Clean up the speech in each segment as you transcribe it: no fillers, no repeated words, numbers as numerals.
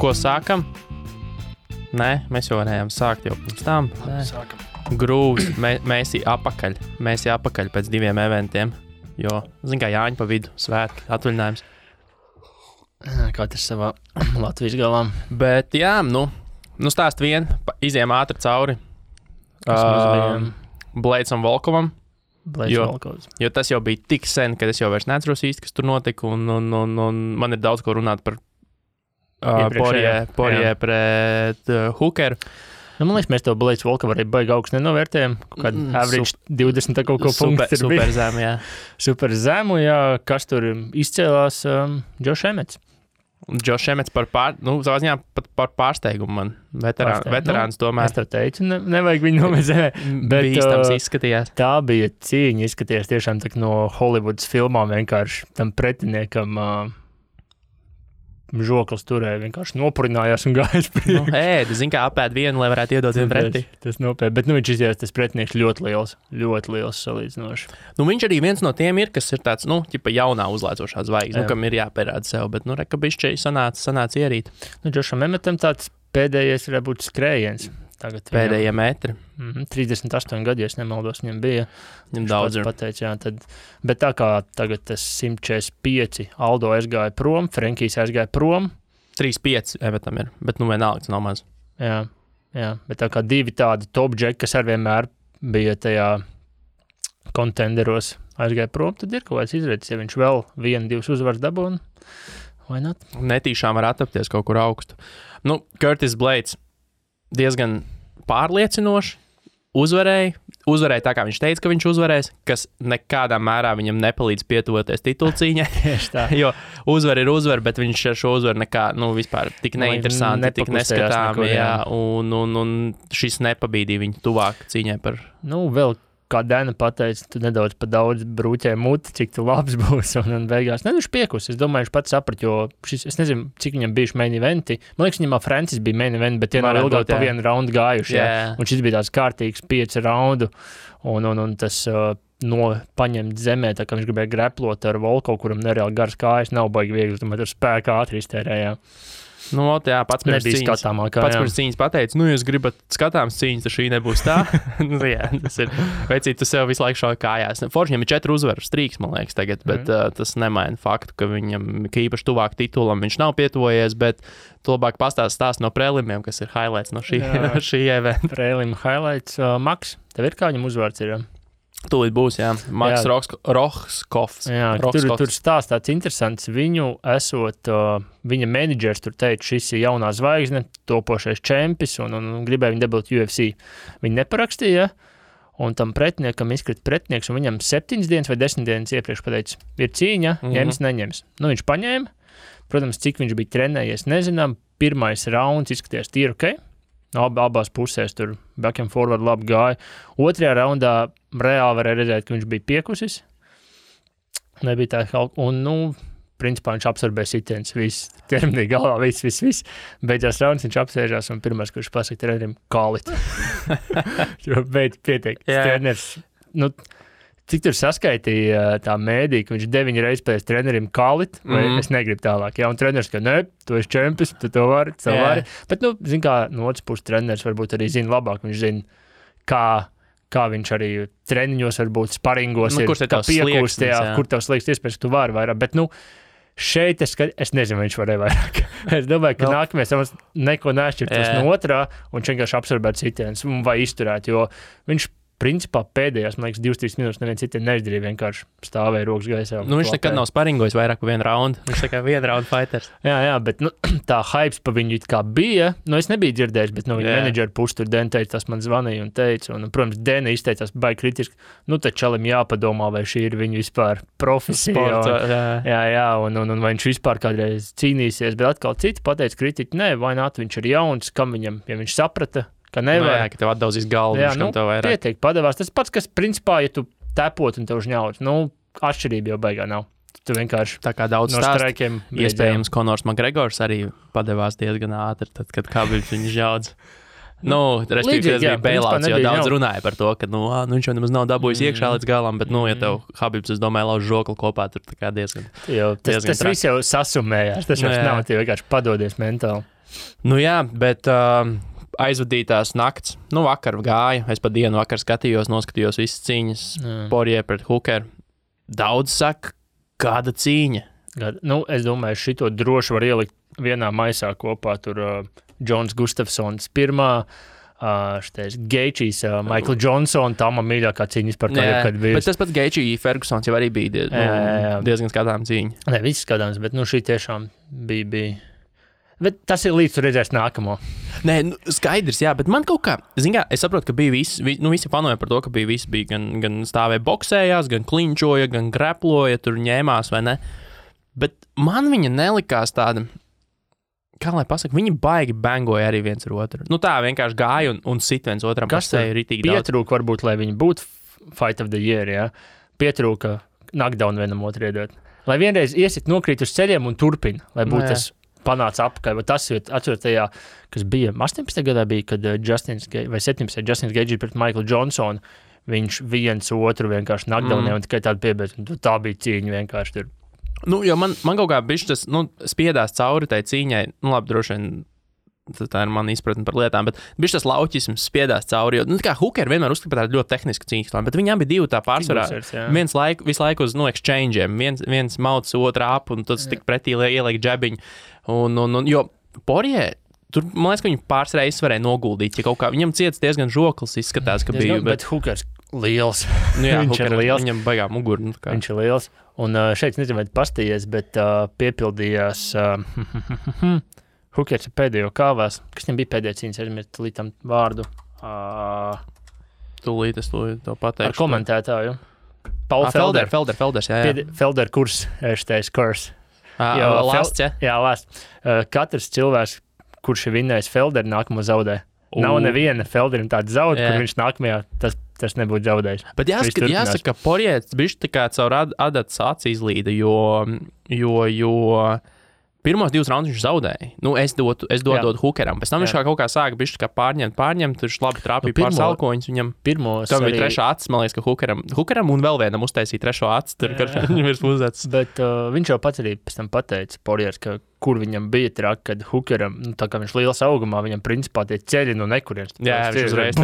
ko sākam? Nē, mēs jau varējām sākt jau pirms tam. Sākam. Grūvs, mēs apakaļ pēc 2 eventiem, jo, zin kā, Jāņa pa vidu, svētki, atvaļinājums. Katrs savā Latvijas galā. Bet jā, nu stāst vien, iziem ātri cauri Bleicam Volkovam. Jo tas jau bija tik sen, kad es jau vairs neatceros īsti, kas tur notika, un man ir daudz ko runāt par Porie pret Hookeru. Man liekas, mēs to Bleicu Volkovu arī baigi augstu nenovērtējam. Kādu average 20 kaut ko punktu ir super zemu, jā. Super zemu, jā. Kas tur izcēlās? Josh Emmets. Josh Emmets savā ziņā pat par pārsteigumu man. Veterāns tomēr. Es tā teicu, nevajag viņu nomezēt. Bīstams izskatījās. Tā bija cīņa, izskatījās tiešām tak no Hollywoods filmām vienkārši tam pretiniekam žoklis turēja, vienkārši nopurinājās un gājas priekš. Zin kā apēd vienu, lai varētu iedot vienu pretī. Tas nopiet, bet viņš izjās, tas pretinieks ļoti liels salīdzinoši. Viņš arī viens no tiem ir, kas ir tāds, ķipa jaunā uzlaicošā zvaigzne, kam ir jāpierāda sev, bet, reka bišķi sanāca ierīt. Josham Emmetam tāds pēdējais varētu būt skrējiens. Tagad pēdējie metri. 38 gadi, ja es nemaldos, viņam bija. Viņam daudz ir. Pateic, jā, bet tā kā tagad tas 145, Aldo aizgāja prom, Frenkijs aizgāja prom. 3-5 Emmetam ir, bet vienalga tas nav maz. Jā, bet tā kā 2 tādi top džeki, kas ar vienmēr bija tajā kontenderos aizgāja prom, tad ir kaut kāds izredzes, ja viņš vēl 1-2 uzvaras dabūna, vai not? Netīšām var attapties kaut kur augstu. Curtis Blades diezgan pārliecinoši uzvarēja tā, kā viņš teica, ka viņš uzvarēs, kas nekādā mērā viņam nepalīdz pietuvoties titulcīņai. Jo uzvar ir uzvar, bet viņš ar šo uzvaru nekā, vispār tik neinteresanti, tik neskatāmi, un šis nepabīdīja viņu tuvāk cīņai par... Vēl kā Dana pateica, tu nedaudz pa daudz brūķē muti, cik tu labs būs, un beigās. Viņš piekus. Es domāju, viņš pats saprat, jo es nezinu, cik viņam bijuši main eventi. Man liekas, viņam Francis bija main eventi, bet tie nav ilgāk pa 1 raundu gājuši. Un šis bija tāds kārtīgs 5 raundu, un tas paņemt zemē, tā kā viņš gribēja greplot ar Volkovu, kuram nereāli garas kājas, nav baigi viegli, tomēr ar spēku ātri iztērējā. Pats pirms cīņas pateica, jūs gribat skatāms cīņas, tad šī nebūs tā. Tas ir, veicīt, tu sev visu laiku šauj kājās. Forši viņam ir 4 uzvaru strīks, man liekas, tagad, bet tas nemaina faktu, ka viņam, ka īpaši tuvāk titulam viņš nav pietuvojies, bet tu labāk pastāst no prelimiem, kas ir highlights no šī eventa. Prelim highlights. Maks, tev ir kā viņam uzvārds ir? Tūlīt būs, jā. Maks Rohskovs. Jā, tur stāsts tāds interesants. Viņu esot, viņa menedžers tur teica, šis ir jaunā zvaigzne, topošais čempis un gribēja viņu dabūt UFC. Viņi neparakstīja, un tam pretiniekam izkrita pretinieks, un viņam 7 dienas vai 10 dienas iepriekš pateica, ir cīņa, ņems, neņems. Viņš paņēma, protams, cik viņš bija trenējies, nezinām, pirmais rauns izskatījās tīri ok. Abās pusēs tur back and forward labi gāja. Otrajā raundā reāli varēja redzēt, ka viņš bija piekusis. Nebija tā kaut... Un, principā viņš absorbēja sitiens, viss, ķermenī galvā, viss. Beidzās rauns, viņš apsēžās un pirmais, kurš pasaka trenerim, kālit. Jo beidz pietiek. Treneris, cik tur saskaitīja tā mēdī, ka viņš 9 reizes pēc trenerim kālit, vai es negribu tālāk. Jā, un treneris, ka tu esi čempis, tu to vari. Bet, zin kā, no otras puses treneris varbūt arī zina labāk, viņš zina, kā viņš arī treniņos varbūt sparingos ir, kā piekūst, kur tavs liekas iespējas, ka tu vari vairāk. Bet, šeit es nezinu, viņš varēja vairāk. Es domāju, ka nākamais neko neatšķirtos no otrā, un viņš vienkārši absorbēt sitienus vai izturēt, jo viņš principā pēdējās, man liekas, 2-3 minūtes neviens citiem neizdarīja, vienkārši stāvēja rokas gaisā. Viņš nekad nav sparingojis vairāk par 1 raundu. Viņš tā kā 1 raundu fighters. Jā, bet tā hypes pa viņu it kā bija. Es nebiju dzirdējis, bet no viņa menedžera puses tur Dena teica, tas man zvanīja un teica. Un, protams, Dena izteicās baigi kritiski. Tad čalim jāpadomā, vai šī ir viņa vispār profesija. Jā, un vai viņš vispār kādreiz cīnīsies. Bet atkal citi pateica kritiķi, nē, vai nāt, viņš ir jauns, kam viņam, ja viņš saprata, ka nevar. Ka tev atdauzīs galvu, kam tev vairāk. Pietiek, padevās. Tas pats, kas principā, ja tu tepot un tev žņauts, atšķirība jau baigā nav. Tu vienkārši tā kā daudz no straikiem. Iespējams, Konors Makgregors arī padevās diezgan ātri, tad, kad Khabibs viņu žņauts. Respektīvi, tas bija bailouts, jo daudz runāja par to, ka, viņš jau nemaz nav dabūjis iekšā līdz galam, bet, ja tev Khabibs, es domāju, lauž žokli kopā, tur tā kā diezgan. Tas viss jau sasumējās, tas jau nav, tie vienkārši padodies mentāli. Nu jā, bet aizvadītās nakts, vakar gāja, es pa dienu vakar noskatījos visas cīņas, Poirier pret Hookeru. Daudz saka, kāda cīņa? Es domāju, šito droši var ielikt vienā maisā kopā, tur Džons Gustafsons pirmā, šitais Geičijs, Michael Johnson, tā man mīļākā cīņas par to, kad bija. Bet tas pats Geičijs Fergusons jau arī bija diezgan skatām cīņa. Nē, viss skatāms, bet šī tiešām bija. Bet tas ir līdz tu redzēs nākamo. Nē, skaidrs, jā, bet man kaut kā, es saprotu, ka bija visi fanoja par to, ka visi bija gan stāvēja boksējās, gan klinčoja, gan greploja, tur ņēmās vai ne. Bet man viņa nelikās tāda, kā lai pasaka, viņi baigi bangoja arī viens ar otru. Tā vienkārši gāja un sit viens otram pa seju ritīgi daudz. Pietrūka varbūt, lai viņi būtu Fight of the Year, jā. Pietrūka knockdown vienam otru iedot. Lai vienreiz iesit nokrīt uz ceļiem un turpina, lai būtu tas panāca apakaļ. Tas ir atceros tajā, kas bija 18. gadā, kad Justins Gaethje pret Michael Johnsonu, viņš viens otru vienkārši knockdownē un tikai tādu piebeidz. Tā bija cīņa vienkārši tur. Jo man kaut kā bišķi tas spiedās cauri tai cīņai. Labi, droši vien tā ir mana izpratne par lietām, bet bišķi tas lauķisms spiedās cauri. Jo, kā Hooker vienmēr uzskata par tādu ļoti tehnisku cīņu, bet viņām bija divi tā pārsvarā. Visu laiku uz exchange'iem. Viens mauc otru ap un tas tik pretī ieliek džebiņu. Jo Poirier, tur, man liekas, ka viņi pāris reizes varēja noguldīt, ja kaut kā viņam ciets diezgan žoklis izskatās, ka bija. Bet Hookers liels. Viņš ir liels. Viņam baigā muguru. Viņš ir liels. Un šeit, nezinu, vai pastījies, bet piepildījās Hookers pēdējo kāvās. Kas viņam bija pēdējā cīņas, aizmirst līdz vārdu? Tūlīt es to pateikšu. Ar komentētāju. Paul Felder. Felders, jā. Felder kurs, eštais kurs. Lasts, jā? Jā, lasts. Katrs cilvēks, kurš ir vinnējis Felderu, nākamo zaudē. Nav neviena Felderim tāda zaud, kur viņš nākamajā tas nebūtu zaudējis. Bet jāsaka, ka Poirier bišķi tā kā caur adatas aci izlīda, jo pirmos 2 raundus viņš zaudēja. Es dodu Hookeram. Pēc tam viņš kaut kā sāka bišķi kā pārņemt, tur labi trāpīja pār salkoņus viņam. Tam bija trešā acis, man liekas, ka Hookeram un vēl vienam uztaisīja trešo acis, tur, kad viņam ir uzdecis. Bet viņš jau pats arī pēc tam pateica, Poiriers, ka kur viņam bija traki, kad Hookeram, tā kā viņš liels augumā, viņam principā tie ceļi no nekurienes. Jā, viņš uzreiz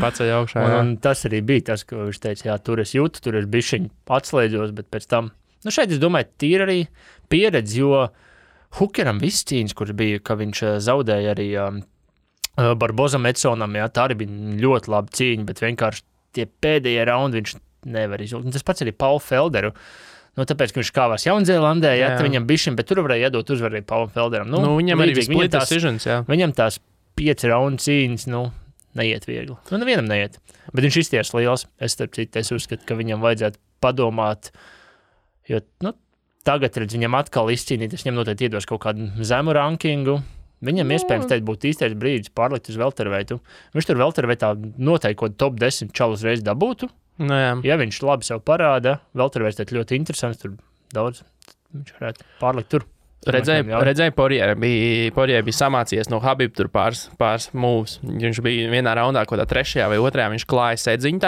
paceļ augšā. Un tas arī bija tas, ka viņš teica, jā, tur es jūtu, tur es bišķiņ atslēdzos, bet pēc tam, šeit es domāju, tīri arī pieredzi, jo Hookeram viss cīņas, kur bija, ka viņš zaudēja arī Barbozam Edsonam, jā, tā arī bija ļoti laba cīņa, bet vienkārši tie pēdējie raundi viņš nevar izvilkt. Un tas pats arī Paul Felderu. Tāpēc, ka viņš kāvās Jaunzēlandē, viņam bišķiņ, bet tur varēja iedot uzvaru Paulam Felderam. Viņam arī split decisions, jā. Viņam tās 5 raundu cīņas, neiet viegli. Nevienam neiet. Bet viņš izties liels. Es uzskatu, ka viņam vajadzētu padomāt, jo, tagad, redz, viņam atkal izcīnīt, es viņam noteikti iedos kaut kādu zemu rankingu. Viņam iespējams teikt būtu īstais brīdis pārlikt uz welterveitu. Viņš tur welterveitā noteikti kaut top 10 čalus reiz dabūtu. Ja viņš labi sev parāda, welterveits ļoti interesants, tur daudz, viņš varētu pārlikt tur. Redzēju, Poirier bija samācījies no Habib tur pāris moves. Viņš bija vienā raundā, kaut kā 3. vai 2. viņš klāja sēdziņu,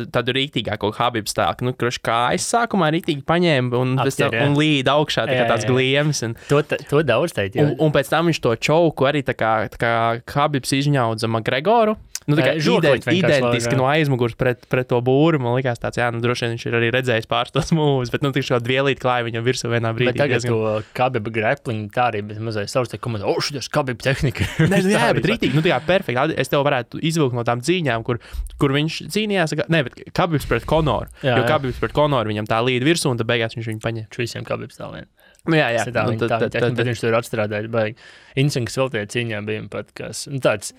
tādu rīktīgāko Habib stāku. Kājas sākumā rīktīgi paņēma un līd augšā, tā kā tāds gliems. To daudz teikt, jā. Un pēc tam viņš to čauku arī tā kā Habibs izņaudza McGregoru. Identiski no aizmugurs pret to būru. Man likās tāds, droši vien viņš ir arī redzējis pāris tos moves, bet tik šo dvielīt klāja viņam virsū vienā brīdī. Bet tagad to Khabib grappling tā arī mazliet savus te komentē, šitas Khabib tehnika. Jā, bet rītīgi, perfekti. Es tev varētu izvilkt no tām cīņām, kur viņš cīnījās, bet Khabibs pret Conoru. Jo Khabibs pret Conoru viņam tā līd virsū un tad beigās viņš viņu paņem. Visiem Khabibs tā vien. Jā. Bet viņš tur atstrādāja, baigi. Insinks vēl tie cīņā bija pat, kas, tāds,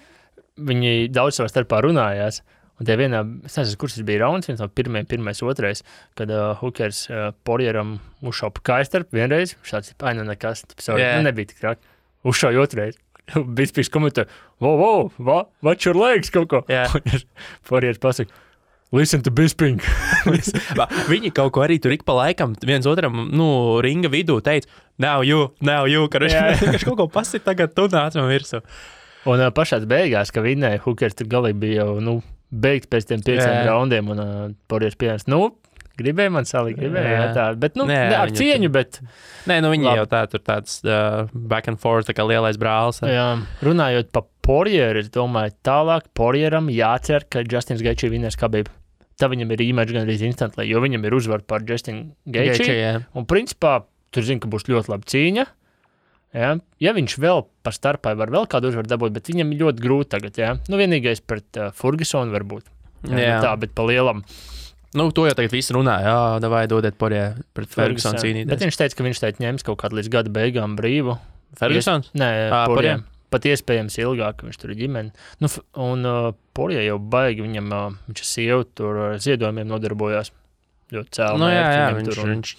viņi daudz savā starpā runājās, un tie vienā, es nezinu, kurš tas bija rauns, viens no pirmais, otrais, kad Hookers Poirieram uzšaupa kājas starp vienreiz, viņš tāds, nekas, nebija tik traki, uzšauja otrais, Bispīgs komentē, what's your legs, kaut ko, Poiriers pasaka, listen to Bisping. Viņi kaut ko arī tur ik pa laikam viens otram, ringa vidū teica, now you, ka viņš kaut ko pasit, tagad tu nāc man virsū. Un pašās beigās, ka Hookers tur galīgi bija jau, beigt pēc tiem 5 raundiem, un Poiriers pieņems, Gribēja man salikt, gribēja tā. Bet, ar cieņu, bet... Nē, viņi jau tur tāds back and forth, tā kā lielais brālis. Jā, runājot pa Poirieru, es domāju, tālāk Poirieram jācer, ka Justins Gaethje vinnēs Khabib. Tā viņam ir rematch gan arī instantly, jo viņam ir uzvar par Justinu Gaethje. Un principā, tur zinu, ka būs ļoti laba cīņa. Ja viņš vēl par starpai var vēl kādu uzvaru dabūt, bet viņam ir ļoti grūti tagad. Vienīgais pret Fergusonu varbūt. Tā, bet pa lielam. To jau tagad visi runā. Davai dodiet Poirier pret Fergusonu cīnīties. Bet viņš teica, ka viņš ņems kaut kādu līdz gada beigām brīvu. Fergusons? Nē, Poirier. Pat iespējams ilgāk, ka viņš tur ir ģimeni. Un Poirier jau baigi, viņš ir sieva, tur ziedojumiem nodarbojās. Ļoti cēl.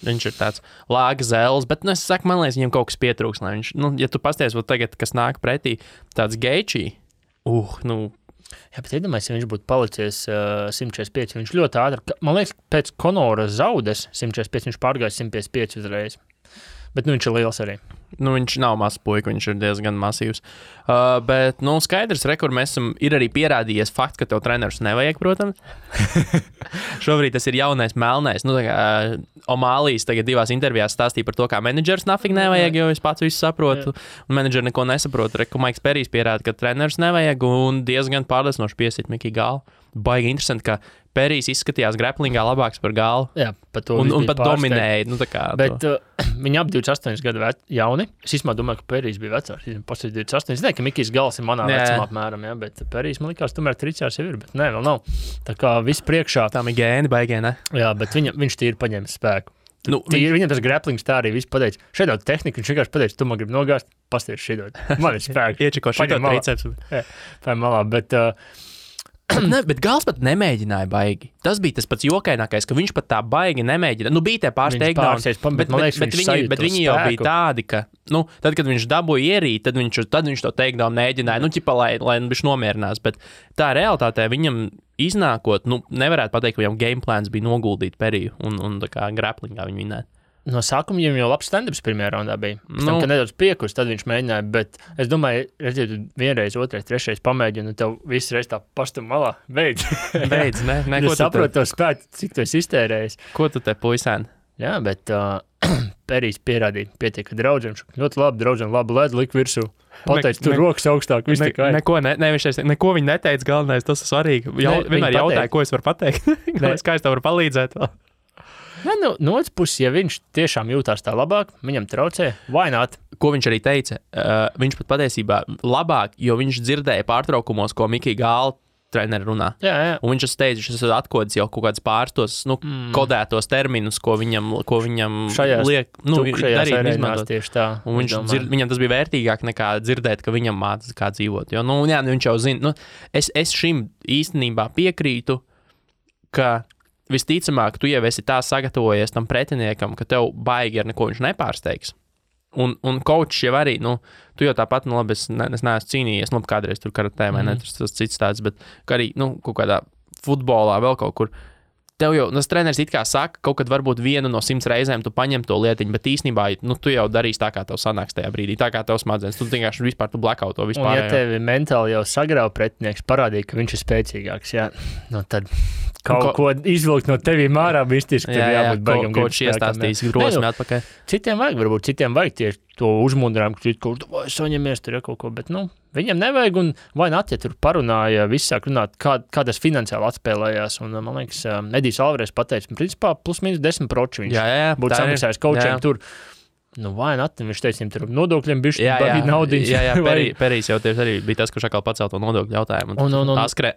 Viņš ir tāds lāga zēles, bet, es saku, man liekas, viņam kaut kas pietrūks. Ja tu pasties, tagad, kas nāk pretī, tāds Gaethje, Jā, bet iedomājies, ja viņš būtu palicies 145, viņš ļoti ātri, man liekas, pēc Conora zaudes 145, viņš pārgāja 155 uzreiz. Bet viņš ir liels arī. Viņš nav mazs puika, viņš ir diezgan masīvs. Bet, skaidrs, kur mēs esam, ir arī pierādījies fakts, ka tev trenerus nevajag, protams. Šobrīd tas ir jaunais melnais. O'Malley's tagad 2 intervijās stāstīja par to, kā menedžers nafig nevajag, jo es pats visu saprotu. Un menedžeri neko nesaprotu. Maiks Perijs pierāda, ka trenerus nevajag un diezgan pārliecinoši piesit Mikī Gālu. Baigi interesanti, ka Perijs izskatījās graplingā labāks par Gālu. Jā, par to un pat dominēja. Bet viņi ap 28 gadu jauni. Es īstenībā domāju, ka Perijs bija vecāks. Pastāv 28. Es nezinu, ka Mikijs Gals ir manā vecumā apmēram, bet Perijs man likās, tomēr tricās jau ir, bet nē, vēl nav. Tā kā viss priekšā. Tā ir gēni, baigē, ne? Jā, bet viņš tīri paņēma spēku. Viņam tas graplings tā arī viss pateica. Šeit daudz tehnika, viņš vienkārši pateica, tu man gribi nogāzt, pasties šeit. Man ir spēks. Iečiko šito triceps. Vai malā, bet... Bet Gals pat nemēģināja baigi. Tas bija tas pats jokainākais, ka viņš pat tā baigi nemēģināja. Bija tie pāris takedowns, bet viņi jau bija tādi, ka, tad, kad viņš dabūja ierīt, tad viņš to takedown mēģināja, lai viņš nomierinās, bet tā realitātē viņam iznākot, nevarētu pateikt, ka viņam game plans bija noguldīt Periju un tā kā grapplingā viņu vinēt. No sākuma viņam jau labs stand-ups pirmajā raundā bija. Tam, ka nedaudz piekurs, tad viņš mēģināja, bet es domāju, redziet, vienreiz, otrais, trešreiz pamēģini, un tev visu reiz tā pastum malā. Beidz, ne. Es saprotu to spētu, cik tu esi iztērējis. Ko tu te puisēni? Jā, bet Perijs pierādīja pietiek, ka draudziem ļoti labi, draudziem labu ledu lik virsū. Pateic, tur rokas augstāk, viss tikai. Neko viņi neteica, galvenais, tas ir svarīgi. Vienmēr jautāja, ko es varu pateikt. Kā es tev varu palīdzēt vēl? Ja, no otras puses, ja viņš tiešām jūtās tā labāk, viņam traucē, vai not? Ko viņš arī teica? Viņš pat patiesībā labāk, jo viņš dzirdēja pārtraukumos, ko Mikī Gāla treneri runā. Jā. Un viņš teica, ka tas atkodis jau kaut kāds pārstos, kodētos terminus, ko viņam liek, darīt, izmantot. Tieši tā. Un viņam tas bija vērtīgāk nekā dzirdēt, ka viņam mācās kā dzīvot. Jo, viņš jau zina, es šim īstenībā piekrītu, ka visticamāk, tu jau esi tā sagatavojies tam pretiniekam, ka tev baigi ar neko viņš nepārsteigs. Un coachs jau arī, tu jau tāpat, labi, es neesmu cīnījies, kādreiz tur karatē vai ne, tas cits tāds, bet arī, kaut kādā futbolā vēl kaut kur. Tev jau, tas treneris it kā saka, kaut kad varbūt vienu no 100 reizēm tu paņem to lietiņu, bet īstenībā, tu jau darīsi tā, kā tev sanāks tajā brīdī, tā kā tev smadzenes, tu vienkārši vispār tu blackout to vispār. Un ja tevi mentāli jau sagrauj pretinieks, parādīja, ka viņš ir spēcīgāks, jā, tad ko izvilkt no tevīm ārā, mistiski, tad jābūt baigam. Kaut iestāstīs drosmi atpakaļ. Citiem vajag tieši to uzmundrām, ka saņemies tur kaut ko, bet, viņam nevajag, un vai ja tur parunāja, viss sāk runāt, kā tas finansiāli atspēlējās, un, man liekas, Edijs Alvarez pateica, principā plus mīnus 10% viņš būtu samaksājis coachiem tur. Vai viņš teica, viņam tur nodokļiem bišķi baigi naudiņas. Jā, Perijs jau tieši arī bija tas, kurš atkal pacēl to nodokļu jautājumu.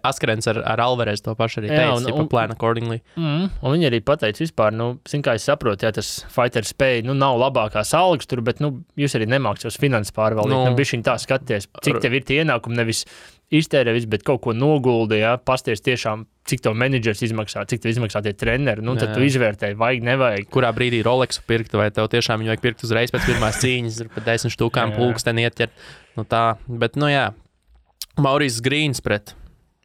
Askrens ar Alvarez to pašu arī teica, plan accordingly. Un viņi arī pateica vispār, kā es saprotu, tas fighter spēja, nav labākās algas tur, bet, jūs arī nemāks savas finanses pārvaldīt. Bišķiņ tā skaties, cik tev ir tie ienākumi, nevis iztērē visu, bet kaut ko noguldi, pasties tiešām, cik tev menedžers izmaksā, cik tev izmaksā tie treneri, tad tu izvērtēji, vajag, nevajag. Kurā brīdī Rolexu pirkt, vai tev tiešām viņu vajag pirkt uzreiz pēc pirmās cīņas, ir pat 10 štukām pulksteni ieķert. Tā, bet, Maurice Grīns pret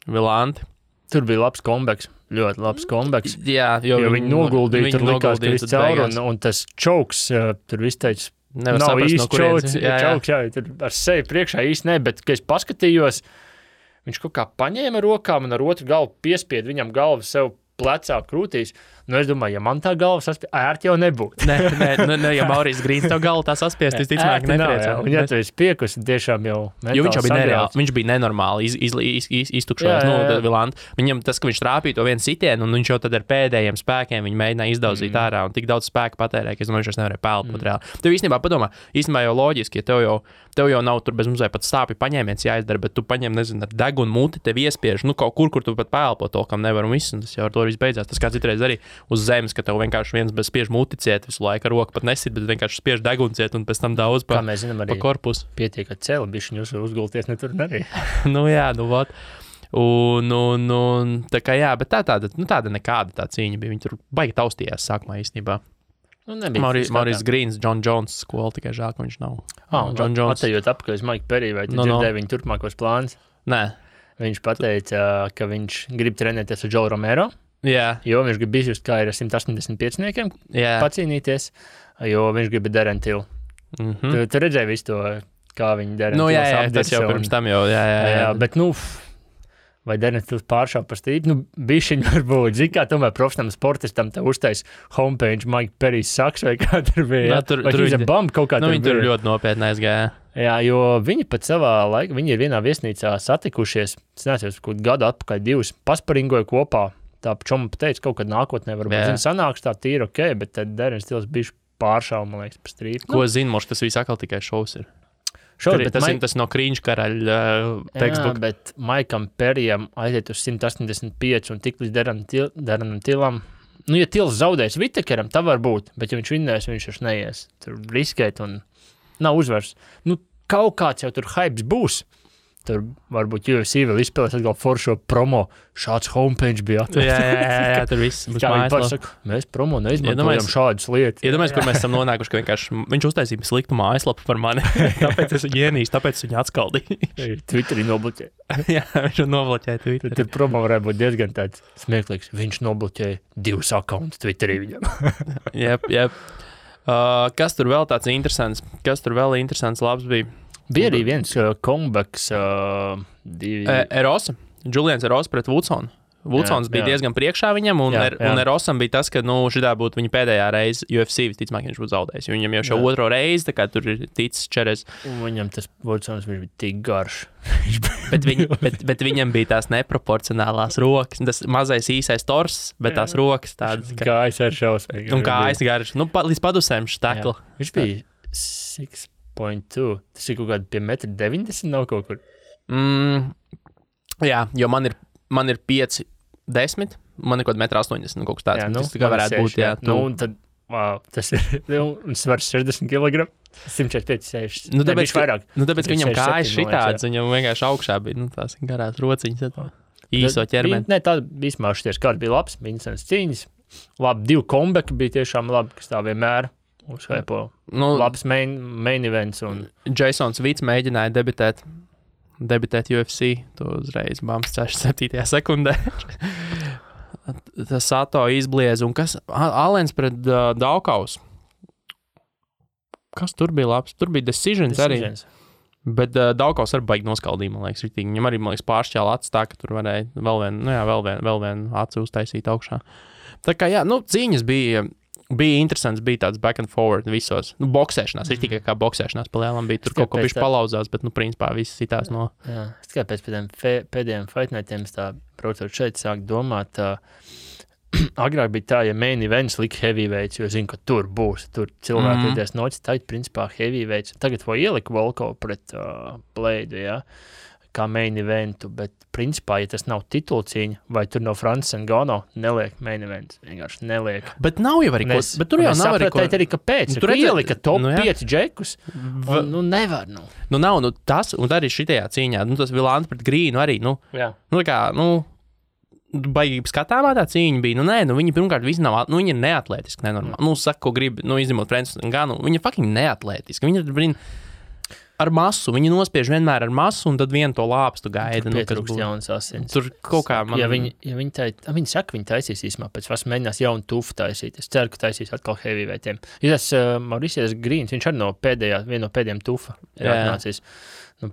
Vilanti. Tur bija labs comebacks, ļoti labs comebacks. Jā, jo viņi noguldīja, tur likās, ka viss caur, un tas čauks, tur viss teica, nav īsti čauks, tur ar sevi priekšā īsti ne, bet, kad es paskatījos, viņš kaut kā paņēma rokām un ar otru galvu piespied viņam galvu sev plecā krūtīs. Nu, es domāju, ja man tā galva saspiest, ērti jau nebūtu. Nē, ja Maurīs Grīns tev galvu tā saspiest, visticamāk nepriecē. Un ja tu esi piekus, tiešām jau jo viņš jau bija nereāli, viņš bija nenormāli iztukšojis, Vilanta. Viņam tas, ka viņš trāpīja to vienu sitienu, un viņš jau tad ar pēdējiem spēkiem viņu mēģināja izdaudzīt ārā, un tik daudz spēku patērēja, ka es domāju, viņš nevarēja pelpot reāli. Tev īstenībā padomā, jau loģiski, ja tev jau nav tur bez mazliet pat stāpju paņēmiens jāizdara, bet tu paņem, nezinu, ar degunu muti, tev iespiež, kaut kur tu pat pelpo to, kam nevar un viss, un tas jau ar to viss beidzās. Tas kā citreiz arī uz zemes, ka tev vienkārši viens bez spiež muti ciet visu laiku, ar roku pat nesit, bet vienkārši spiež degunu ciet un pēc tam daudz pa korpusu. Pietiek, ka celi bišķiņu uzgulties, ne tur arī. Vot. Un tā kā jā, bet tāda nekāda tā cīņa bija. Viņi tur baigi taustījās sākumā īstenībā. Maurīs Grīns, John Jones skola, tikai žēl, ka viņš nav. John Jones. Atejot apakaļ uz Mike Perry, vai tu dzirdēji viņu turpmākos plānus? Nē. Viņš pateica, ka viņš grib trenēties ar Joe Romero, jo viņš grib izjust, kā ir ar 185-niekiem pacīnīties, jo viņš grib Darren Till. Tu redzēji visu to, kā viņi Darren Tills apdirsa. Tas jau pirms tam jau, bet, vai Darren Tills pāršāv par stību, bišķiņ varbūt, zini, kā tomēr profesionālam sportistam te uztais homepage Mike Perry's saks, vai kā tur bija, vai viņš ir bump kaut kā tur bija. Viņi tur ļoti nopietni aizgāja. Jā, jo viņi pat savā laikā, viņi ir vienā viesnīcā satikušies, es nezinu, kaut gadu atpakaļ divus, pasparingoja kopā, tā čoma pateica, kaut kad nākotnē varbūt, sanāks tā tīri ok, bet tad Darren Tills bišķi pāršāv, man liekas, par strīpu. Ko zinu, moš, tas viss atkal tikai šovs ir. Tas no Krīņš karaļa tekstbook. Jā, bet Maikam Perryam aiziet uz 185 un tik līdz Darrenam Tillam. Ja Tills zaudēs Vitekeram, tā var būt, bet ja viņš vinnēs, viņš vairs neies. Tur riskēt un nav uzvars. Kaut kāds jau tur hypes būs. Tur varbūt UFC vēl izspēlēs atkal foršo promo. Šāds homepage bija atvērts. Jā, tur viss. Kā viņi pasaka, mēs promo neizmantojam šādas lietas. Iedomājies, kur mēs esam nonākuši, ka vienkārši viņš uztaisīja sliktu mājaslapu par mani. Tāpēc es viņu ienīstu, tāpēc viņu atskaldīju. Twitterī nobloķēja. Jā, viņš nobloķēja Twitterī. Tur promo varētu būt diezgan tāds smieklīgs. Viņš nobloķēja 2 accountus Twitterī viņam. Jep. Kas tur vēl tāds interesants? Kas tur vēl interesants labs bija? Bija arī viens comebacks. Erosa. Julians Erosa pret Woodsonu. Woodsons bija diezgan priekšā viņam, un Erosam bija tas, ka šitā būtu viņa pēdējā reize UFC, visticamāk, viņš būtu zaudējis. Viņam jau šo otro reizi, tā kā tur ir ticis čeres. Un viņam tas Woodsons bija tik garš. bet viņam bija tās neproporcionālās rokas. Tas mazais īsais tors, bet tās rokas tādas. Kājas ar šausmīgi. Un kājas garš. Līdz padusēm štakli. Viņš bija 6.2. Tas ir kaut kādi pie 1,90 m nav kaut kur. Jā, jo man ir 5'10", man ir kaut 1,80 m kaut kas tāds. Tas tā kā varētu būt, jā. Un tad, tas ir, un svars 60 kg, 145, 60. Tāpēc, ka viņam kājas šitāds, viņam vienkārši augšā bija, tās garās rociņas, īso ķermeni. Nē, tā vismā šities kāds bija labs, interesants cīņas. Labi, 2 comeback bija tiešām labi, kas tā vienmēr uzhaipo. Labs main events. Jasons Vits mēģināja debitēt UFC, to uzreiz bams 7. sekundē. Tas Sato izbliez, un kas? Alens pret Daukaus. Kas tur bija labs? Tur bija Decisions. Arī. Bet Daukaus arī baigi noskaldīja, man liekas, ritīgi. Viņam arī, man liekas, pāršķēla acis tā, ka tur varēja vēl vienu aci uztaisīt augšā. Tā kā, jā, cīņas bija interesants, bija tāds back and forward visos. Boksēšanās, ir tikai kā boksēšanās pa lielam bija. Tur kaut ko bišķi palauzās, bet, principā, viss sitās no... Jā, es tikai pēc pēdējiem fight nightiem es tā, braucot šeit, sāku domāt, agrāk bija tā, ja main events lika heavyweights, jo zinu, ka tur būs, tur cilvēki iedies nocis, tā ir, principā, heavyweights. Tagad vai ieliku Volkov pret Blade, jā, kā main eventu, bet, principā, ja tas nav titulcīņa, vai tur no Francis Ngannou, neliek main events, vienkārši neliek. Bet nav jau arī ko, bet tur jau nav arī ko. Arī kāpēc, tur ielika top 5 džekus, nevar, nav, tas, un arī šitajā cīņā, tas Vilanta pret Grīnu arī, baigi skatāmā tā cīņa bija, viņi pirmkārt visi nav, viņi ir neatlētiski, nenormāli. Saka, ko grib, izņemot Francis Ngannou, viņi ir fucking neatlētiski, viņi ir, ar masu, viņi nospiež vienmēr ar masu, un tad vienu to lāpstu gaida. Tur pietrūkst jaunas asins. Tur kaut kā man... Ja viņi saka, viņi taisīs īsumā, pēc vas mēģinās jaunu tufu taisīt. Es ceru, ka taisīs atkal heavyweighiem. Ja tas Mauricius Grīns, viņš arī viena no pēdējiem tufa ir atnācis.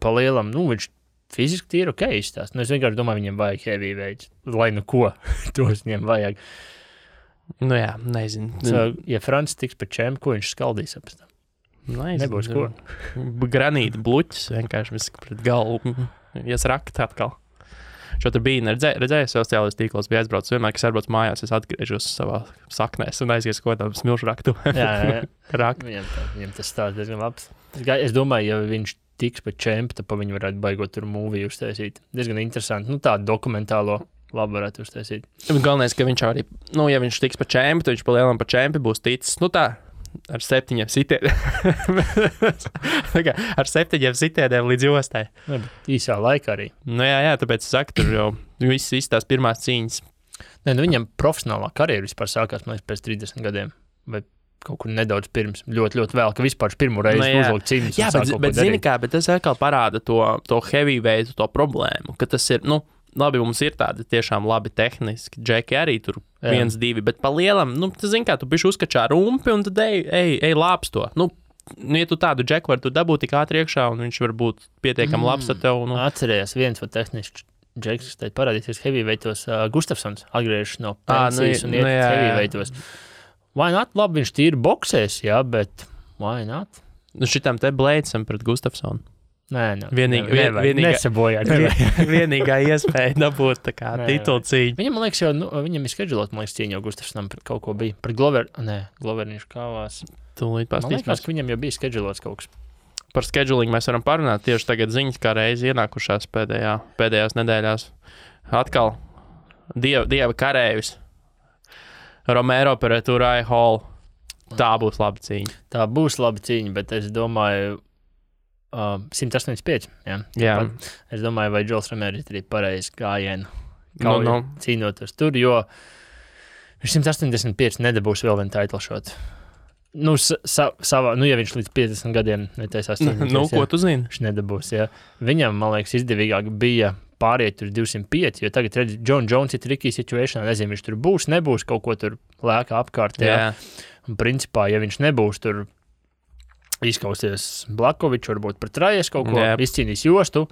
Pa lielam, viņš fiziski tīri ok izstāst. Nu, es vienkārši domāju, viņiem vajag heavyweights. Lai nu ko, tos viņiem vajag. Nu jā, nezinu. Ja Francis tiks pa čempu, ko viņš skaldīs apēc tam? Nebūs ko. Granīta bluķis vienkārši viss pret galvu. Iesrakt atkal. Šo tur bija redzēju sociālajos tīklos, bija aizbraucis vienmēr, kas aizbrauc mājās, es atgriežos savā saknēs un aizies ko tādu smilšu raktu. Jā. Viņam tas stāsts diezgan labs. Es domāju, ja viņš tiks pa čempu, tad pa viņu varētu baigot tur mūviju uztaisīt. Diezgan interesanti. Nu, tādu dokumentālo labi varētu uztaisīt. Galvenais, ka viņš arī, ja viņš tiks pa čempu, tad viņš pa lielam pa čempu būs ticis, ar 7 sitieniem. Ar 7 sitieniem līdz jostai. Īsā laikā arī. Jā, tāpēc es saku, tur jau viss tās pirmās cīņas. Viņam profesionālā karjera vispār sākās, man liekas, pēc 30 gadiem. Vai kaut kur nedaudz pirms, ļoti, ļoti vēl, ka vispār pirmo reizi uzlikt cīņas. Jā, bet zini kā, bet tas atkal parāda to heavyweight, to problēmu, ka tas ir, labi, mums ir tādi tiešām labi tehniski, džeki arī tur 1-2, bet pa lielam, tu zini kā, tu bišķi uzkačā rumpi un tad ej lāps to. Ja tu tādu džeku vari tu dabūt tik ātri iekšā un viņš var būt pietiekami labs ar tev. Atcerējās viens vai tehnisks džeks, kas teikt parādīsies heavyweightos, Gustafsons atgriežas no pensijas un iet heavyweightos. Why not? Labi, viņš tīri boksēs, jā, bet why not? Šitam te Bladesam pret Gustafsonu. Nē, nesabojāt. Vienīgā iespēja dabūt tā kā titulu cīņu. Viņam, man liekas, viņam ir skedžulot, man liekas, cīņa jau Gustafsonam pret kaut ko bija. Pret Glover viņš kāvās. Tūlīt pastīsimies. Man liekas, ka viņam jau bija skedžulots kaut kas. Par scheduling mēs varam parunāt. Tieši tagad ziņas kā reizi ienākušās pēdējās nedēļās. Atkal dieva karējus. Romero pret Uriah Hall. Tā būs laba cīņa. Bet es domāju 185. Jā. Es domāju, vai Džols Romero ir arī pareizi gājienu cīnoties tur, jo viņš 185 nedabūs vēl vienu title shot. Ja viņš līdz 50 gadiem netaisās cīnīties. Ko tu zini? Viņš nedabūs, jā. Viņam, man liekas, izdevīgāk bija pāriet tur 205, jo tagad redz, John Jones ir tricky situation, nezinu, viņš tur būs, nebūs, kaut ko tur lēkā apkārt, jā. Un principā, ja viņš nebūs tur izkausies Blakovičs, varbūt pret Rajas kaut ko, izcīnīs jostu,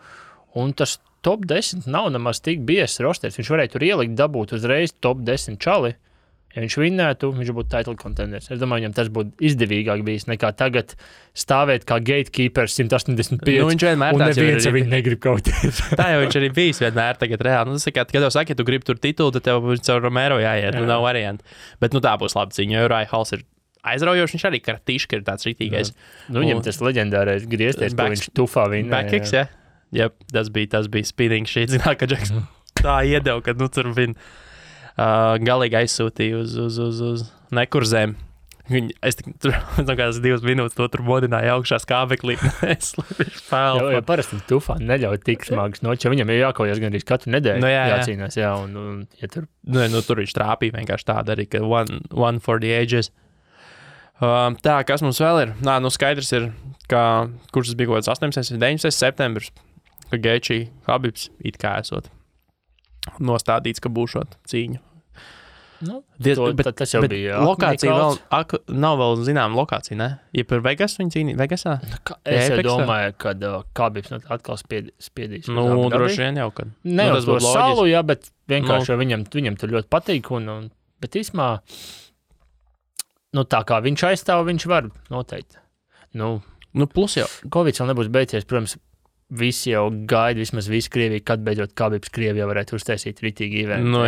un tas top 10 nav nemaz tik bies rosters. Viņš varēja tur ielikt, dabūt uzreiz top 10 čali. Ja viņš vinnētu, viņš būtu title contenders. Es domāju, viņam tas būtu izdevīgāk bijis nekā tagad stāvēt kā gatekeepers 185. Viņš vienmēr un neviens ar viņu negrib kauties. Tā jau viņš arī bijis vienmēr tagad reāli. Tas kā, kad tev saka, ja tu gribi tur titulu, tad tev caur Romero jāiet. Nav varianti. Bet tā būs laba cīņa, jo Uriah Halls ir aizraujoši. Viņš arī kartīški ir tāds ritīgais. Viņam tas leģendārais griezties, ko viņš tufā vinnēja. Backkicks, jā. Jep, tas bija spinning shit. Zināt, ka Džeks tā iedeva, kad tur vin. Galīgi aizsūtīja uz nekurzēm. Es tur kādas 2 minūtes to tur modināju augšā skābeklī. Jo parasti tufā neļauj tik smagas noķi, viņam ir jākaujas gandrīz katru nedēļu jācīnās. Jā, un ja tur... tur viņš trāpīja vienkārši tāda arī, ka one for the ages. Tā, kas mums vēl ir? Skaidrs ir, kurš tas bija kaut kāds 18. 19. septembris, ka Gaethje Khabibs it kā esot nostādīts, ka būšot cīņu. Tas jau bija. Lokācija vēl, nav vēl zinām lokācija, ne? Ja par Vegas viņi cīnīja, Vegasā? Es domāju, kad Khabibs atkal spiedīs. Droši vien jau, kad. Ne uz to salu, jā, bet vienkārši viņam tur ļoti patīk, bet īsmā, tā kā viņš aizstāv, viņš var noteikti. Plus jau. Covid vēl nebūs beidzies, protams, visi jau gaida, vismaz visi Krievija, kad beidzot Khabibs Krievijā varētu uztaisīt ritīgi eventu.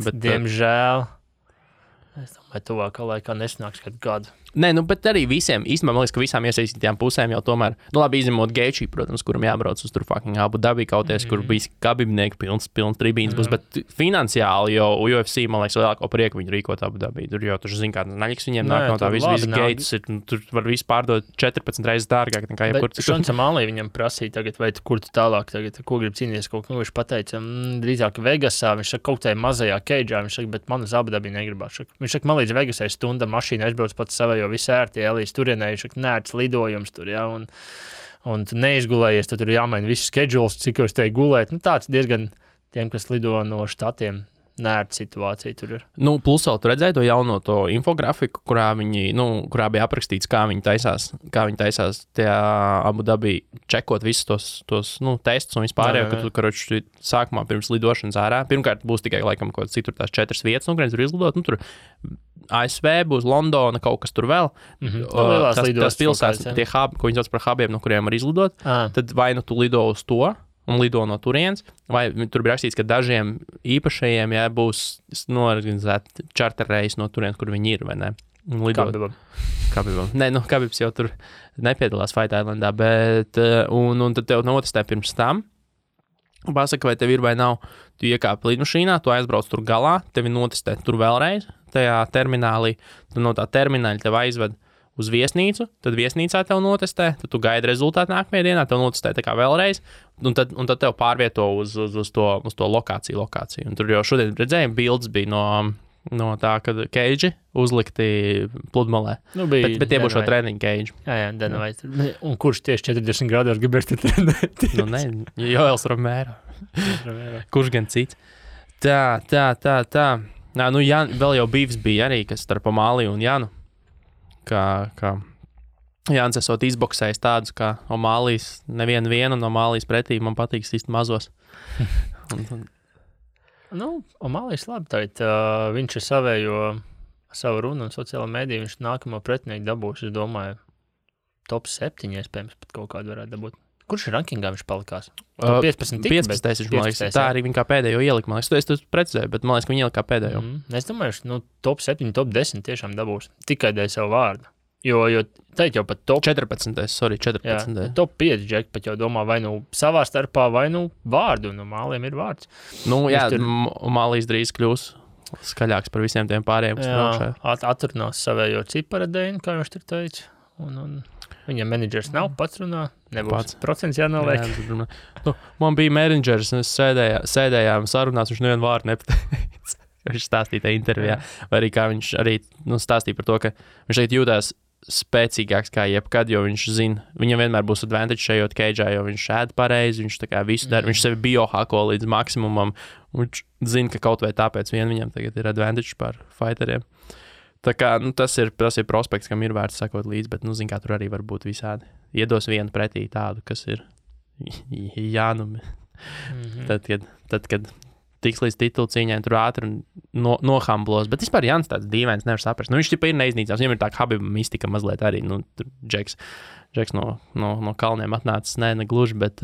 Bet diemžēl, es domāju, tuvākā laikā nesanāks kādu gadu. Nē, bet arī visiem, īstenībā, man liekas, ka visām iesaistītajām pusēm jau tomēr, labi, izņemot Gaethje, protams, kuram jābrauc uz tur fucking Abu Dhabi kauties, kur bija Khabibnieki pilns tribīns būs, bet finansiāli jau UFC, man liekas, lielāko prieku viņi rīkot Abu Dhabi. Tur jau, zin kā, naļiks viņiem nāk no tā visu gates, tur var visu pārdot 14 reizes dārgāk nekā jebkur citur. Bet Šonsam Alī viņam prasīja tagad, vai kur tu tālāk tagad, ko grib cīnīties, kaut ko viņš pateica, drīzāk Vegasā, viņš saka, kaut tajā mazajā keidžā, viņš saka, bet man uz Abu Dhabi negribās. Viņš saka, man līdz Vegasai stunda mašīna aizbrauc pats savai, jo viss ērti, līdz turienē, viņš nērts lidojums tur, jā, un tu neizgulējies, tad tur jāmaina viss schedules, cik jūs te gulēt. Tāds diezgan tiem, kas lido no štatiem, nērta situācija tur ir. Nu, plus vēl tu redzēji to jauno to infografiku, kurā kurā bija aprakstīts, kā viņi taisās tajā Abu Dabī čekot visus tos testus un vispārējo, ka tu, karoči, sākumā pirms lidošanas ārā. Pirmkārt, būs tikai, laikam, kaut kāds citur tās 4 vietas, kurienes tur izlidot. Tur ASV būs Londona, kaut kas tur vēl. Tas pilsētas, tie hubi, ko viņi sauc par hubiem, no kuriem var izlidot, tad vai nu tu lido uz to, un lido no turienes, vai tur bija rakstīts, ka dažiem īpašajiem būs norganizēti čarterreisi no turienes, kur viņi ir, vai ne? Kabibam. Nē, Kabibs jau tur nepiedalās Fight Islandā, bet un tad tev notestē pirms tam, pasaka, vai tev ir vai nav, tu iekāpi lidmašīnā, tu aizbrauc tur galā, tevi notestē tur vēlreiz, tajā terminālī, tu no tā termināļa tev aizved uz viesnīcu, tad viesnīcā tev notestē, tad tu gaidi rezultātu nākamajā dienā, tev notestē tā kā vēlreiz, un tad tev pārvieto uz to lokāciju. Un tur jau šodien redzējām, bildes bija no tā, kad keidži uzlikti pludmalē. Bet tie būs šo treniņu keidži. Jā, Dana White. Un kurš tieši 40 grādos gribēs te trenēt? Joels Romero. Kurš gan cits? Tā. Vēl jau Bīvs bija arī, kas starp Omāliju un Janu. Kā Jānis esot izboksējis tādus, kā Omālijas nevienu un Omālijas pretī man patīk sist mazos. Omālijas labi, tātad viņš ir savu runu un sociālo mediju, viņš nākamo pretinieku dabūs, es domāju, top 7 iespējams pat kaut kādu varētu dabūt. Kurš rankingā viņš palikās? 15 tika, 15, man liekas, tā arī viņa kā pēdējo ielika, man liekas, es precizēju, bet man liekas, ka viņa ielika kā pēdējo. Es domāju, top 7, top 10 tiešām dabūs, tikai dēļ savu vārdu. Jo teikt jau pat top 14. Jā, top 5 džeki pat jau domā vai savā starpā, vai vārdu, un Māliem ir vārds. Mālijas drīz kļūs skaļāks par visiem tiem pārējiem, kas braukšā. Atrunās savējo ciparadēņu, kā viņš tur teica, un viņam menedžers nav, pats runā, nebūs procents jānoliek. Man bija menedžers, un es sēdējām sarunās, viņš nevienu vārdu nepateica. Viņš stāstīja tajā intervijā, vai arī kā viņš arī stāstīja par to, ka viņš šeit jūtās spēcīgāks kā jebkad, jo viņš zina, viņam vienmēr būs advantage šajot keidžā, jo viņš ēd pareizi, viņš tā kā visu dara, viņš sevi biohako līdz maksimumam, viņš zina, ka kaut vai tāpēc viņam tagad ir advantage par fighteriem. Tā kā, tas ir prospekts, kam ir vērts sakot līdzi, bet, zin kā, tur arī var būt visādi. Iedos vienu pretī tādu, kas ir jānumi. Tad, kad tiks līdz titulu cīņai, tur ātri nohamblos, bet vispār Jānis tāds dīvains, nevar saprast. Viņš tipa ir neiznīcās, viņam ir tā Habib mistika mazliet arī, tur Džeks no kalniem atnācis, ne gluži, bet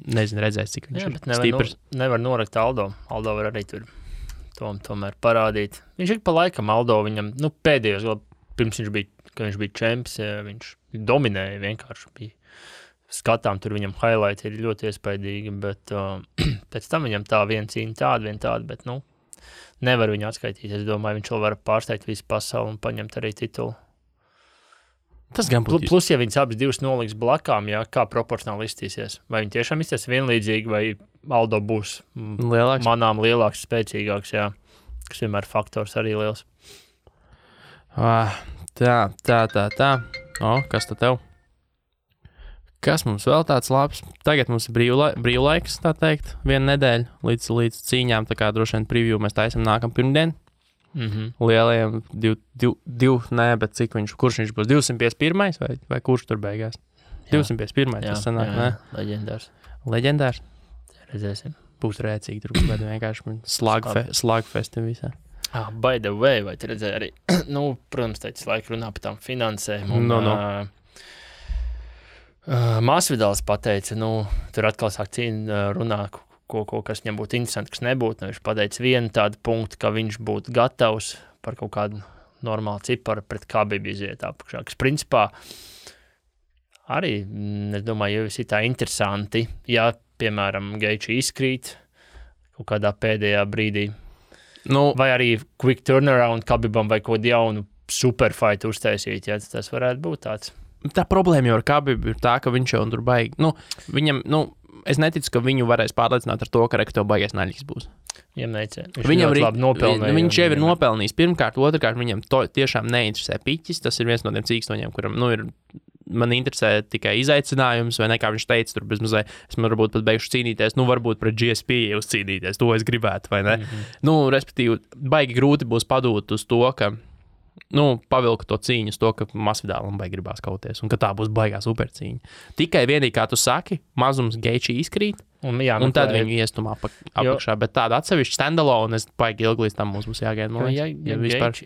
nezinu, redzēs, cik viņš ir stiprs. Nevar norakt Aldo var arī tur tomēr parādīt. Viņš ik pa laikam Aldo viņam, pēdējos, pirms viņš bija čemps, viņš dominēja vienkārši bija. Skatām, tur viņam highlight ir ļoti iespaidīgi, bet pēc tam viņam tā viena cīņa tāda, bet, nevar viņu atskaitīt. Es domāju, viņš vēl var pārsteigt visu pasauli un paņemt arī titulu. Tas gan būtu. Plus, ja viņas abas divas noliks blakām, kā proporcionāli iztīsies. Vai viņi tiešām izties vienlīdzīgi, vai Aldo būs manām lielāks, spēcīgāks, kas vienmēr faktors arī liels. Tā. Kas tad tev? Kas mums vēl tāds labs? Tagad mums ir brīvlaiks, tā teikt, viena nedēļa līdz cīņām, tā kā droši vien preview mēs taisam nākam pirmdien. Lielajiem bet kurš viņš būs? 251. vai kurš tur beigās? 251. Tas sanāk, ne? Leģendārs? Redzēsim. Būs rēcīgi, tur būs vienkārši slagfesti visā. By the way, vai tu redzēji arī, protams, teicis laika runā par tām finansēm. Masvidāls pateica, tur atkal sāk cīņa runā, kas viņam būtu interesanti, kas nebūtu. Viņš pateica vienu tādu punktu, ka viņš būtu gatavs par kaut kādu normālu ciparu pret Khabib iziet apakšā. Kas principā arī, es domāju, jau ir tā interesanti, ja, piemēram, Geiči izkrīt kaut kādā pēdējā brīdī. Vai arī quick turnaround Khabibam vai kaut jaunu superfight uztaisīt, ja tas varētu būt tāds. Tā problēma jau ar Khabibu ir tā, ka viņš jau tur baigi. Viņam, es neticu, ka viņu varēs pārliecināt ar to, ka rekto baigies naļīgs būs. Viņam labi nopelnīja. Viņš jau ir nopelnījis. Pirmkārt, otrkārt, viņam tiešām neinteresē piķis. Tas ir viens no tiem cīkstoņiem, kuram, ir man interesē tikai izaicinājums, vai ne, kā viņš teica, tur bezmazliet, es man varbūt pat beigšu cīnīties, nu, varbūt pret GSP uzcīnīties, to es gribētu, vai ne? Nu, respektīvi, baigi grūti būs padūt uz to, ka, nu, pavilka to cīņu uz to, ka Masvidālam baigi gribās kauties, un ka tā būs baigā supercīņa. Tikai vienīgi, kā tu saki, mazums Geiči izkrīt, un tad viņu iestumā apakšā, bet tāda atsevišķa standalone, es baigi ilgi līdz tam mums būs jāgaida, man liekas.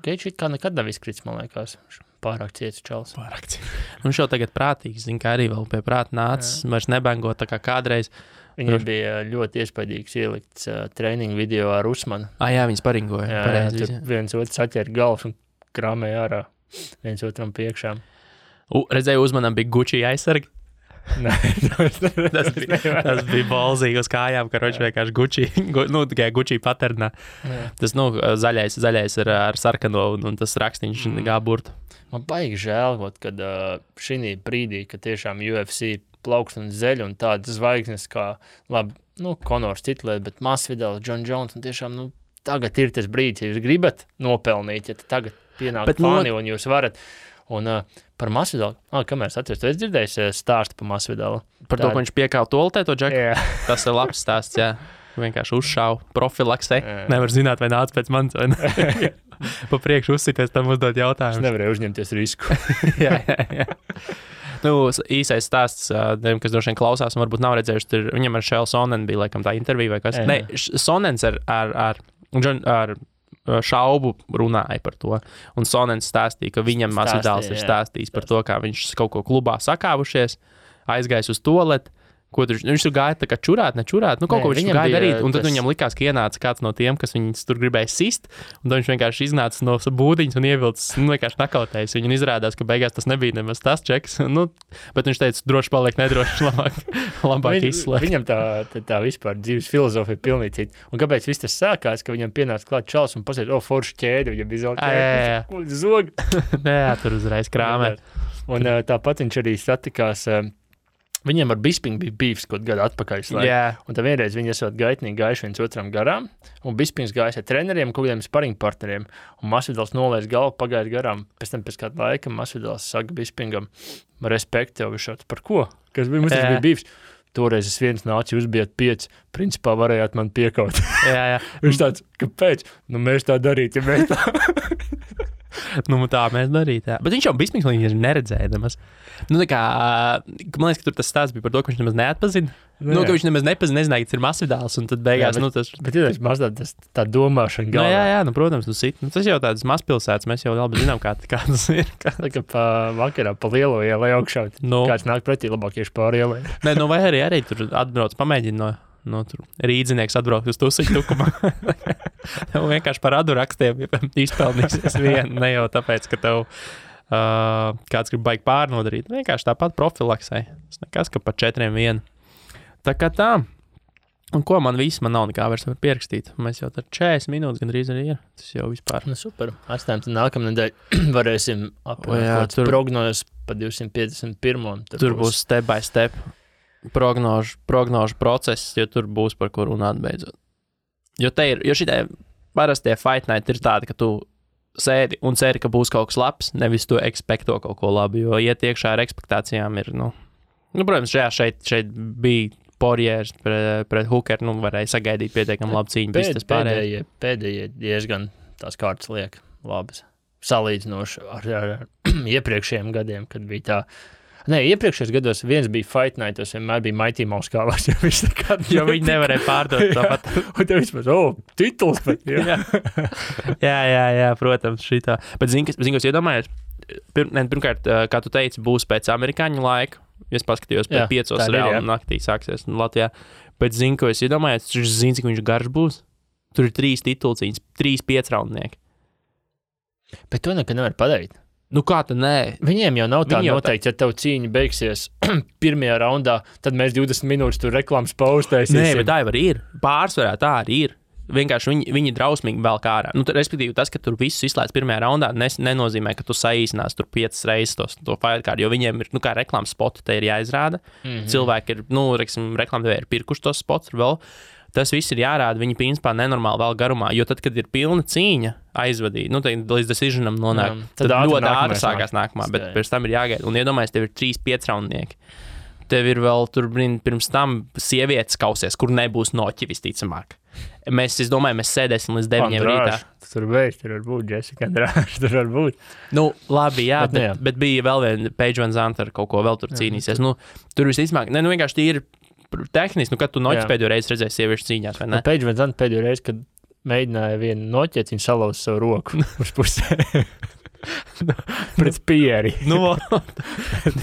Geiči kā nekad nav izkrits, man liekas. Pārāk ciets čals. Pārāk ciets. Un šo tagad prātīgs, zin, kā arī vēl pie prāta nācis, vairs nebango tā kā kādreiz. Viņam bija ļoti iespaidīgs ielikts trainingu video ar Usmanu. Jā, viņi sparingoja. Jā, viens otrs atķēra galvas un krāmēja ārā viens otram priekšā. Redzēju, Usmanam bija Gucci aizsargi. Nē, tas bija balzīgi uz kājām, ka roči vienkārši Gucci, nu, tikai Gucci paternā. Tas, nu, zaļais ar sarkano un tas rakstīņš gā burtu. Man baigi žēl, kad šī brīdī, kad tiešām UFC plaukst un zeļ un tādas zvaigznes kā, labi, nu, Conors titulē, bet Masvidal, John Jones, un tiešām, nu, tagad ir tas brīdis, ja jūs gribat nopelnīt, ja tagad pienāk fani un jūs varat. Un par Masvidalu, kamēr es atceros, tu esi dzirdējis stāstu par Masvidalu? Par to, ka viņš piekāva toltē to džeku? Jā. Tas ir labs stāsts, jā. Vienkārši uzšāva profilaksē. Nevar zināt, vai nāc pēc manis, vai ne? Pa priekšu uzsities, tam uzdot jautājumus. Es nevarēju uzņemties risku. jā. Nu, īsais stāsts, kas droši vien klausās un varbūt nav redzējuši, viņam ar Šēlu Sonenu bija, laikam, tā intervija vai kas. Ne, Sonens ar Šaubu runāja par to, un Sonens stāstīja, ka viņam Masvidāls ir stāstījis par to, kā viņš kaut ko klubā sakāvušies, aizgājis uz toaleti, ko viņš tur gāja tā kā čurāt, nečurāt, nu kaut ko viņš gāja darīt, un tad viņam likās, ka ienāca kāds no tiem, kas viņus tur gribēja sist, un tad viņš vienkārši iznāca no būdiņas un ievilcis, nu vienkārši nakautējis viņu, un izrādās, ka beigās tas nebija nemaz tas čeks, nu, bet viņš teica, droši paliek nedroši, labāk izslēgt. Viņam tā vispār dzīves filozofija pilnīgi cita, un kāpēc viss tas sākās, ka viņam pienāca klāt čals un pasēd, foršu ķēdi, viņam bija zelta zog. Jā, tur uzreiz krāmē. Un tāpat viņš arī satikās. Viņiem ar Bispingu bija bīvs kaut gadu atpakaļ. Un tad vienreiz viņi esot gaitnīgi gājuši viens otram garām, un Bispings gājis ar treneriem, kaut kādiem sparingu partneriem, un Masvidals nolaiž galvu, pagājis garām. Pēc tam pēc kāda laika Masvidals saka Bispingam, respekt tev višāds, par ko? Kas bija, mums tas bija bīvs. Toreiz es viens nācu, jūs bijat 5, principā varējāt man piekaut. Jā. Viņš tāds, kāpēc? Nu mēs tā darīt, ja mēs tā... Nu, tā mēs darīt, jā. Bet viņš jau Bispings līdz neredzēja nemaz. Nu, tā kā, man liekas, ka tur tas stāsts bija par to, ka viņš nemaz neatpazina. Nu, ka viņš nemaz nepazina, nezināja, ka tas ir Masvidāls, un tad beigās, tas... Bet ir mazliet tā domāšana galvā. Jā, nu, protams, tas jau tādas mazpilsētas, mēs jau labi zinām, kā tas ir. Tā kā vakarā pa lielo ielai augšā, kāds nāk pretī labāk ieši pāri ielai. Nē, nu, vai arī tur atbrauc, pamēģina no tur rīdzinieks atbraukt uz tusiņu tukumā. Tev vienkārši par radu rakstiem izpelnīsies vienu, ne jau tāpēc, ka tev kāds grib baigi pārnodarīt. Vienkārši tāpat profilaksē. Tas nekas, ka par 4-1. Tā kā tā. Un ko man nav nekā vairs var pierakstīt. Mēs jau tad 40 minūtes gandrīz arī ir. Tas jau vispār. Nu, super. Atstājam, tad nākamnedēļ varēsim apmēram prognozes pa 251. Tur būs step by step prognožu process, jo tur būs par ko runāt beidzot. Jo šitie parastie fight night ir tādi, ka tu sēdi un ceri, ka būs kaut kas labs, nevis tu ekspekto kaut ko labu, jo iet iekšā ar ekspektācijām ir, protams, šeit bija Porjērs pret Hookeru, varēja sagaidīt pietiekami labu cīņu. Pēdējie diezgan tās kārtas liek labas, salīdzinoši ar iepriekšējiem gadiem, kad bija tā. Nē, iepriekšējos gados viens bija Fight Night, tas vienmēr bija Mighty Mouse kālās, jo viņi nevarēja pārdot tāpat. Un tev vispār, tituls pat, jā, protams, šitā. Bet zini, kas iedomājies? Pirmkārt, kā tu teici, būs pēc amerikāņu laika. Es paskatījos pēc 5 reāli naktī sāksies Latvijā. Bet zini, ko es iedomājies? Tu zini, cik viņš garš būs? Tur ir 3 titulcīņas, 3 5-raundnieki. Bet to nekad nevar padarīt. Nu kā tad nē? Viņiem jau nav tā noteikti, ja tev cīņa beigsies pirmajā raundā, tad mēs 20 minūtes tur reklāmas paustēsim. Nē, bet tā jau arī ir. Pārsvarā tā arī ir. Vienkārši viņi drausmīgi vēl kā ārā. Respektīvi, tas, ka tur visus izslēdz pirmajā raundā, nenozīmē, ka tu saīsinās tur 5 reizes to fight card, jo viņiem ir, kā reklāmas spoti te ir jāizrāda. Cilvēki ir, reklāmdevēji ir pirkuši tos spots vēl. Tas viss ir jārāda, viņi principā nenormāli vēl garumā, jo tad, kad ir pilna cīņa aizvadīja. Nu, līdz decisionam nonāk. Tad ļoti ātri sākās nākamā, bet pēc tam ir jāgaida. Un iedomājies, tev ir 3-5 raundnieki. Tev ir vēl tur pirms tam sievietes kausies, kur nebūs noķi visticamāk. Es domāju, mēs sēdēsim līdz 9 rītā. Tur var būt Jessica Andrāša, tur var būt. Nu, labi, jā, bet bija vēl viena Paige Van Zandt ar kaut ko vēl tur cīnīsies. Nu, tur visticamāk, vienkārši tīri tehniski, kad tu noķis pēdējo reizi redzēji sieviešu cīņās, vai ne? Paige Van Zandt pēdējo reizi, kad mēģināja vienu noķēt, viņa salauza savu roku uz pusē. Pret Pieri.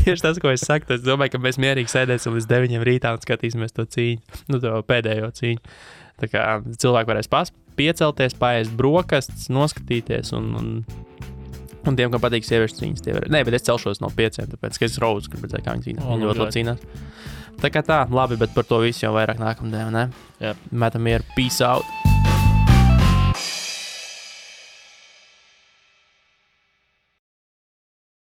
Tieši tas, ko es saku, es domāju, ka mēs mierīgi sēdēsim līdz 9 rītā un skatīsimies to cīņu, to pēdējo cīņu. Tā kā cilvēki varēs piecelties, paēst brokastis, noskatīties un tiem, kam patīk sieviešu cīņas, tie var. Nē, bet es celšos no 5, tāpēc, ka es Rose gribu redzēt, kā viņi cīnās. Viņi ļoti labi cīnās. Tā kā tā, labi, bet par to visu jau vairāk nākamdien, ne? Jā. Metam mieru. Peace out.